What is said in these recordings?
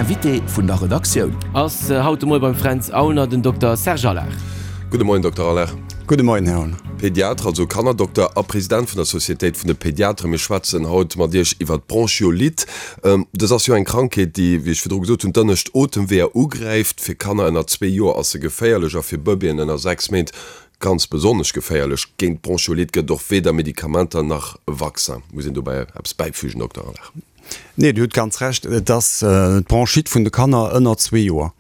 Invité vun der Redaktioun. Ass haut de Moie beim Fränz Aulner den Dokter Serge Allard. Gudde Moien, Dokter Allard. Gudde Moien, Här Aulner. Pediatre, also Kannerdokter a President vun der Sociétéit vun de Pediatren. Mir schwätzen haut mat Iech iwwer d'Bronchiolite. Dës ass jo eng Krankheet, déi, wéi ech virdru gesot hunn, d'ënnescht Otemweeër ugräift. Fir Kanner ënner zwee Joer ass se geféierlech a fir Bëbeeën ënner 6 Méint ganz besonnesch geféierlech. Géint d'Bronchiolite gëtt et och weder Medikamenter nach e Vaccin. Muss een dobäi eppes bäifügen, Dokter Allard? Nee, Dir hutt ganz Recht. Et ass d'Bronchite vun de Kanner ënner zwee Joer.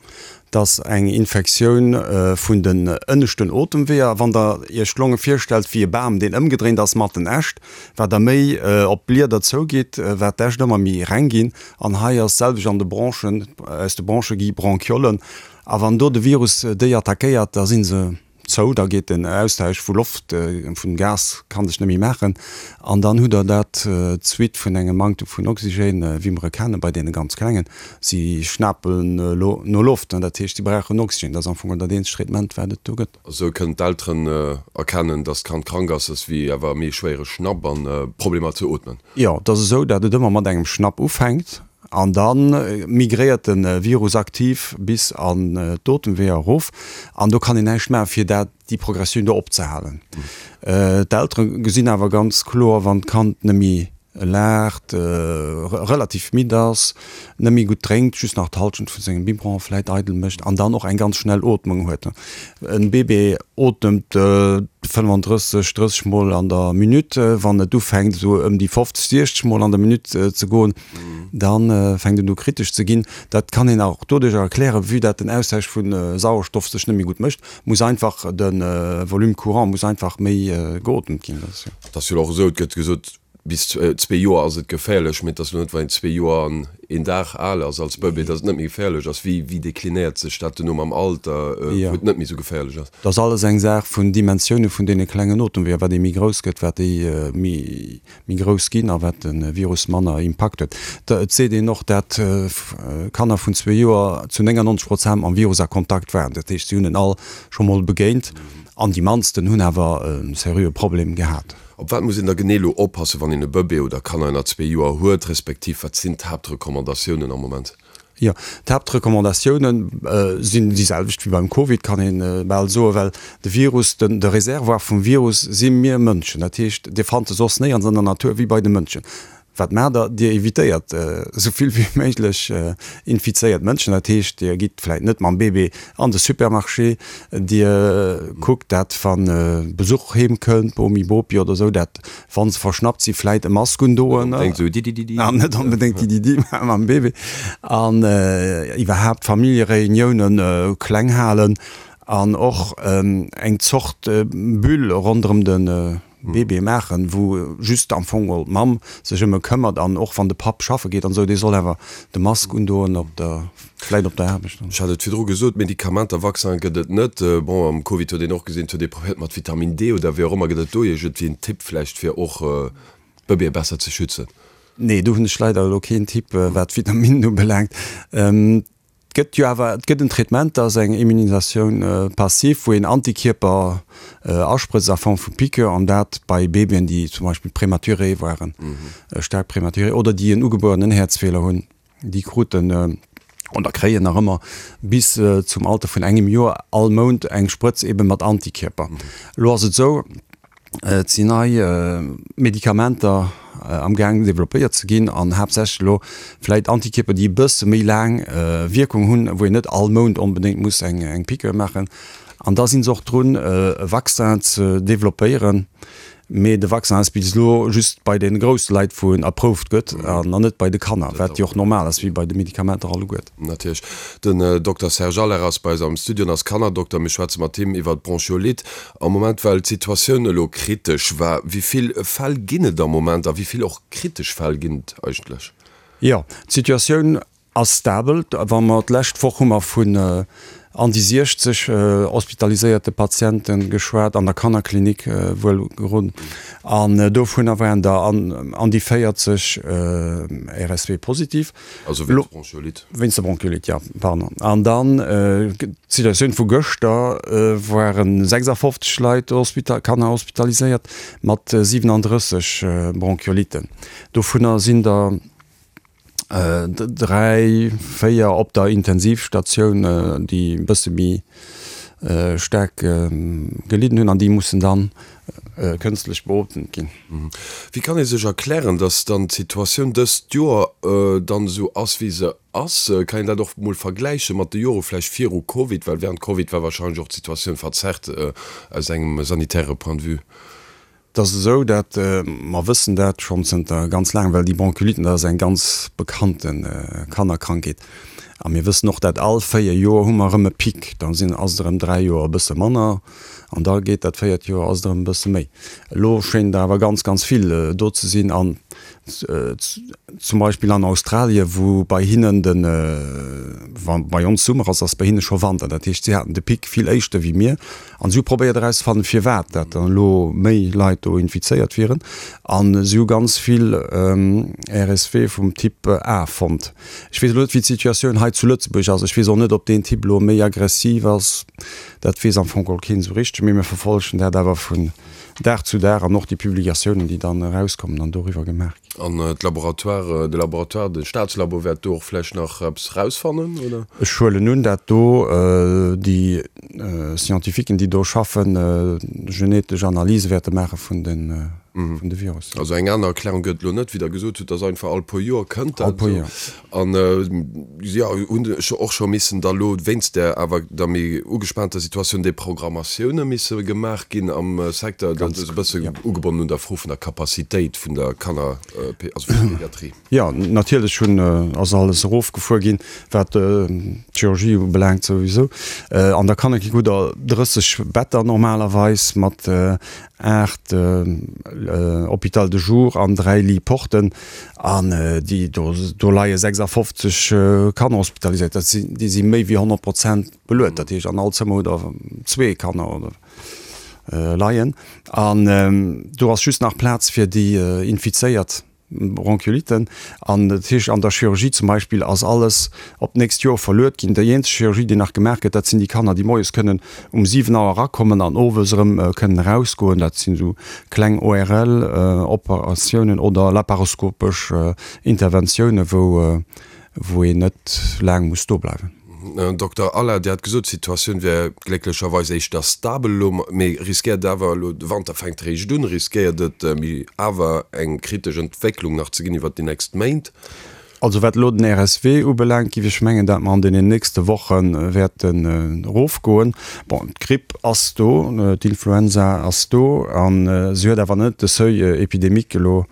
Et ass eng Infektioun vun den ënneschten Otemweeër. Wann Der Iech d'Longe virstellt wéi e Bam, deen ëmgedréint ass mat den Äscht, wat Der méi op d'Blieder zougitt, wat d'Äscht ëmmer méi reng ginn. An hei ass d'selwecht an de Bronchen. Aus de Bronche gi Bronchiollen. A wann do de Virus déi attackéiert, da si se zou, da geet den Austausch vu Loft, vun Gas kann sech net méi maachen an dann hutt der dat d'Suite vun engem Manktem vun Oxygène, wéi mer e kenne bei deene ganz Klengen. Si schnapen no Loft, dat heescht si brauchen Oxygène. Dat ass am Fong dat eenzegt Traitement wat et do gëtt. Esou kënnen d'Elteren erkennen, datt d'Kand krank ass, ass wéi awer méi schwéiere Schnapp an Problemer ze ootmen. Jo, et ass esou, datt et ëmmer mat engem Schnapp ufänkt An da migréiert de Virus aktiv bis an d'Otemweeër erof. An do kann een näischt maachen, fir dat, déi Progressioun do opzehalen. D'Eltere gesinn awer ganz kloer, wann d'Kand net méi laacht, relativ midd ass, net méi gutt drénkt, just nach d'Hallschent vu sengem Biberon vläit eidel mécht an dann och eng ganz schnell Ootmung huet. E Bébé otemt 35, 30 Mol an der Minutt. Wann et ufänkt esou ëm déi 50, 60 Mol an der Minutt ze goen, da fänkt et u kritesch ze ginn. Dat kann een och doduerch erklären, vue dat den Austausch vu Sauerstoff sech net méi gutt mécht, muss einfach de Volume courant muss einfach méi geotemt ginn. Et ass jo och esou, et gëtt gesot, bis zwee Joer ass et geféierlech, mee et ass elo net, wann een zwee Joer an een Dag al ass als Bëbee, datt et net méi geféierlech ass. Wéi, wéi deklinéiert sech dat duerno mam Alter, wou et net méi esou geféierlech ass? Dat ass alles eng Saach vun Dimensioune vun deene klengen Otemweeër. Wat ee méi grouss gëtt, wat déi méi, méi grouss ginn a wat de Virus manner Impakt huet. Et seet een och, dat Kanner vun zwee Joer zu 99 Prozent mam Virus a Kontakt waren. Dat heescht, si hunn en all scho mol begéint an déi mannsten hunn awer e seriöe Problem gehat. Op wat muss een da genee elo oppassen, wann een e Bëbee oder Kanner ënner zwee Joer huet, respektiv wat sinn d'Haaptrecommandatiounen am Moment? Jo, d'Haaptrecommandatioune sinn déi selwecht wéi beim Covid, kann ee bal soen, well de Virus, de Reservoir vum Virus si mir Mënschen. Dat heescht, Dir fannt e soss néierens an der Natur wéi bei de Mënschen. Wat maacht Der? Dir evitéiert esou vill wéi méiglech infizéiert Mënschen. Dat heescht, Dir gitt vläit net mam Bébé an de Supermarché. Dir kuckt, dat wa Besuch heem kënnt, Bomi, Bopi oder esou, dat wa se verschnappt si vläit e Mask undoen. Net onbedéngt esou Didididi. An net onbedéngt Dididi mam Bébé. An iwwerhaapt Familljereuniounen kleng halen an och eng Zort Bulle ronderëm de Bébé maachen, wou just am Fong geholl d'Mamm sech ëm e këmmert an och wann de Papp schaffe geet an esou, dee soll awer de Mask undoen op der, vläit op der Aarbecht. Ech hat et virdru gesot, Medikamenter, Vaccin gëtt et net. Bon, am Covid huet een och gesinn, et huet ee probéiert mat Vitamin D oder wéi och ëmmer. Gëtt et do iergendwéi en Tipp vläicht fir och d'Bëbeeë besser ze schützen? Nee, do hunn ech leider elo keen Tipp wat d'Vitaminen ubelaangt. Et gëtt jo awer, et gëtt en Traitement, dat ass eng Immunisatioun passive, wou een Antikierper asprëtzt a Form vu Piqûre, an dat bei Babyen, déi zum Beispill prématuré waren, staark prématuré, oder déi en ugebuerenen Häerzfeeler hunn. Déi kruten oder kréien nach ëmmer bis zum Alter vun engem Joer all Mount eng Sprëtz eebe mat Antikierper. Elo ass et esou, Et sinn nei Medikamenter am gaang developpéiert ze ginn an haaptsächlech elo vläit Antikierper, déi e bësse méi laang Wierkung hunn, wou een net all Mount onbedéngt muss eng Piqûre maachen. An da si se och drun, e Vaccin ze developpéieren. Mee de Vaccin ass bis elo just bei de grousse Leit, wou en approved gëtt, an net bei de Kanner, wat jo och normal ass, wéi bei de Medikamenter alleguert. Natierlech. Den Dokter Serge Allaire ass bei eis am Studio an ass Kannerdokter. Mir schwätze mat him iwwer d'Bronchiolite. Am Moment, well d'Situatioun elo kritesch war, wéi vill Fäll ginn et am Moment a wéi vill och kritesch Fäll ginn et eigentlech? Jo, d'Situatioun ass stabel. Wa mer d'lescht Woch hu mer vun an déi 60 hospitaliséierte Patiente geschwat, an der Kannerklinik wuel gerun, an dovunner waren der an déi 40 RSV-positiv. Also wéinst Bronchiolite. Wéinst der Bronchiolite, jo, pardon. An dann d'Situatioun vu gëschter, ware 56 Leit, Kanner hospitaliséiert mat 37 Bronchioliten. Dovunner sinn der. 3, 4 op der Intensivstatioun, déi e bësse méi staark gelidden hunn an déi mussen dann kënstlech beotemt ginn. Wéi kann ee sech erklären, datt dann d'Situatioun dëst Joer dann esou ass, wéi se ass? Kann een dat och mol vergläiche mat de Jore vläicht viru Covid? Well während Covid war wahrscheinlech och d'Situatioun verzerrt aus engem sanitäre Point de vue. Et ass esou, dat mer wëssen dat schonn zënter ganz laangem, well déi Bronchioliten, dat ass eng ganz bekannte Kannerkrankheet. A mir wëssen och, dat all 4 Joer hu mer erëm e Pic. Da sinn, ass et erëm 3 Joer e bësse manner an da geet dat véiert Joer, ass et erëm e bësse méi. Elo schéint der awer ganz, ganz vill do ze sinn an zum Beispill an Australien, wou bei hinnen de, wa bei ons Summer ass, ass bei hinne scho Wanter. Dat heescht, si haten de Pic vill éischter wéi mir. An si hu probéiert erauszefannen, firwat dat dann elo méi Leit do infizéiert wieren. A si hu ganz vill RSV vum Typ A fonnt. Ech weess elo net, wéi d'Situatioun hei zu Lëtzebuerg ass. Ech weess och net, ob deen Typ elo méi aggressiv ass. Dat weess am Fong geholl keen esou richteg. Mee mir verfollegen dat awer vun Dag zu Dag an och déi Publikatiounen, déi dann erauskommen an doriwwer gemaach ginn. An d'Laboratoire, de Laboratoire, de Staatslabo wäert do och vläicht nach eppes rausfannen, oder? Ech huelen un, dat do déi Scientifiquen, déi do schaffen, genetesch Analyse wäerte maache vun de Virussen. Also eng aner Erklärung gëtt et elo net, wéi Der gesot hutt, dass einfach all puer Joer kënnt dat. All puer Joer. An jo, hunn ech och scho missen da lo wéinst där awer der méi ugespaanter Situatioun déi Programmatioune misse gemaach ginn am Secteur. Dat ass e bësse ugebonnen un der Fro vun der Capacitéit vun der Kanner, also vun der Pediatrie. Jo, natierlech hunn, ass alles erofgefuer ginn, wat d'Chirurgie ubelaangt souwisou. An der Kannerklinik hutt Der 30 Better normalerweis mat 8 Hôpital de jour an 3 Lits porten. An déi do, do leie 56 Kanner hospitaliséiert. Dat sinn, déi si méi wéi 100 Prozent beluet. Dat heescht, an all Zëmmer hutt Der zwee Kanner oder leien. An do ass just nach Plaz fir déi Infizéiert. Bronchioliten. An dat heescht, an der Chirurgie zum Beispill ass alles op d'nächst Joer verluet ginn. Déi eenzeg Chirurgie, déi nach gemaach gëtt, dat sinn déi Kanner, déi moies kënnen um 7 Auer erakommen an owes erëm kënnen erausgoen. Dat sinn esou kleng ORL-Operatiounen oder laparoskopesch Interventiounen, wou wou een net laang muss do bleiwen. Dokter Allard, Dir hat gesot, d'Situatioun wär glécklecherweis éischter stabel elo, mee riskéiert awer elo, de Wanter fänkt eréischt un, riskéiert et méi awer eng kritesch Entwécklung nach ze ginn iwwert déi nächst Méint? Also wat elo den RSW ubelaangt, géif ech mengen, dat mer an deenen nächste Woche wäerten erofgoen. Bon, d'Gripp ass do, d'Influenza ass do a se huet awer net de Seuil épidémique elo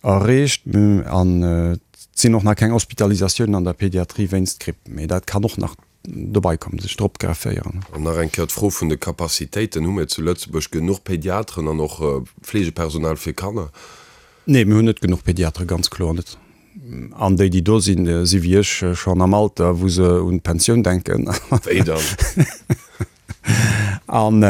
erreecht an et sinn och nach keng Hospitalisatiounen an der Pediatrie wéinst Gripp, mee dat kann och nach dobei kommen, sech drop grefféieren. An nach eng Kéier d'Fro vun de Capacitéiten, Hu mir zu Lëtzebuerg genuch Pediateren an och Fleegepersonal fir Kanner? Nee, mir hunn net genuch Pediatere, ganz kloer net. An déi, déi do sinn, si wéi ech schonn am Alter, wou se un d'Pensioun denken. Wéi dann? An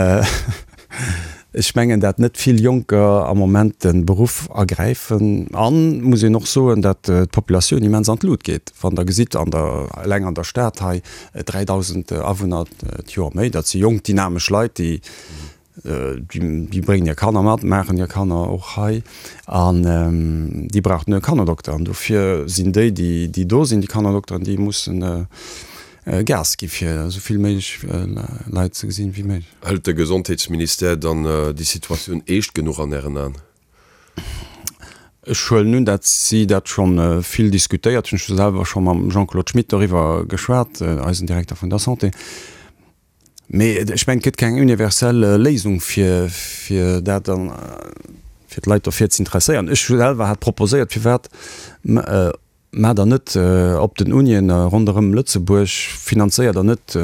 ech mengen, dat net vill Jonker am Moment de Beruff ergräifen. An muss een och soen, dat d'Populatioun immens an d'Lut geet. Wann Der gesitt, an der, eleng an der Stad hei, 3.000 Awunner d'Joer méi, dat si jonk, dynamesch Leit, déi, déi bréngen hir Kanner mat, maachen hir Kanner och hei. An déi brauchten e Kannerdokter. An dofir sinn déi, déi do sinn, déi Kannerdokteren, déi mussen Gas gi fir esou vill méiglech Leit ze gesinn wéi méiglech. Hëlt de Gesondheetsministère dann déi Situatioun eescht genuch an Ären Aen? Ech huelen un, dat si dat scho vill diskutéiert hunn. Ech hu selwer scho mam Jean-Claude Schmit doriwwer geschwat, eisen Direkter vun der Santé. Mee ech mengen, et gëtt keng universell Léisung fir fir dat dann, fir d'Leit dofir ze interesséieren. Ech selwer hat proposéiert, firwat Maacht der net op den Unien ronderëm Lëtzebuerg, finanzéiert der net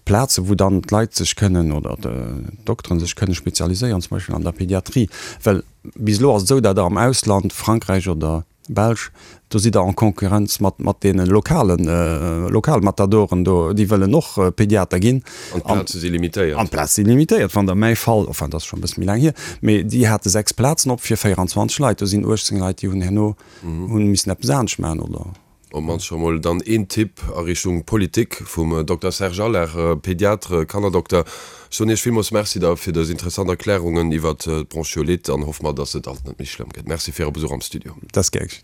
Plazen, wou dann d'Leit sech kënnen oder d'Dokteren sech kënne spezialiséieren, zum Beispill an der Pediatrie? Well bis elo ass et esou, datt der am Ausland, Frankräich oder Belsch, do sidd der en Concurrenz mat mat deene lokalen Lokalmatadoren do, déi wëllen och Pediater ginn. An d'Plaze si limitéiert. An d'Plaze si limitéiert. Wann der mäi Fall, enfin dat ass scho e bësse méi laang hier, mee déi hate 6 Plazen op fir 24 Leit, do sinn 18 Leit, déi hunn herno Hunn missen eppes anescht maachen, oder? Op mannst scho mol dann een Tipp a Richtung Politik vum Dokter Serge Allard, Pediatre, Kannerdokter. Ech soen Iech villmools Merci da fir dës interessant Erklärungen iwwert d'Bronchiolite an hoffe mer, dass et alt net méi schlëmm gëtt. Merci fir Äre Besuch am Studio. Dat ass gär geschéngt.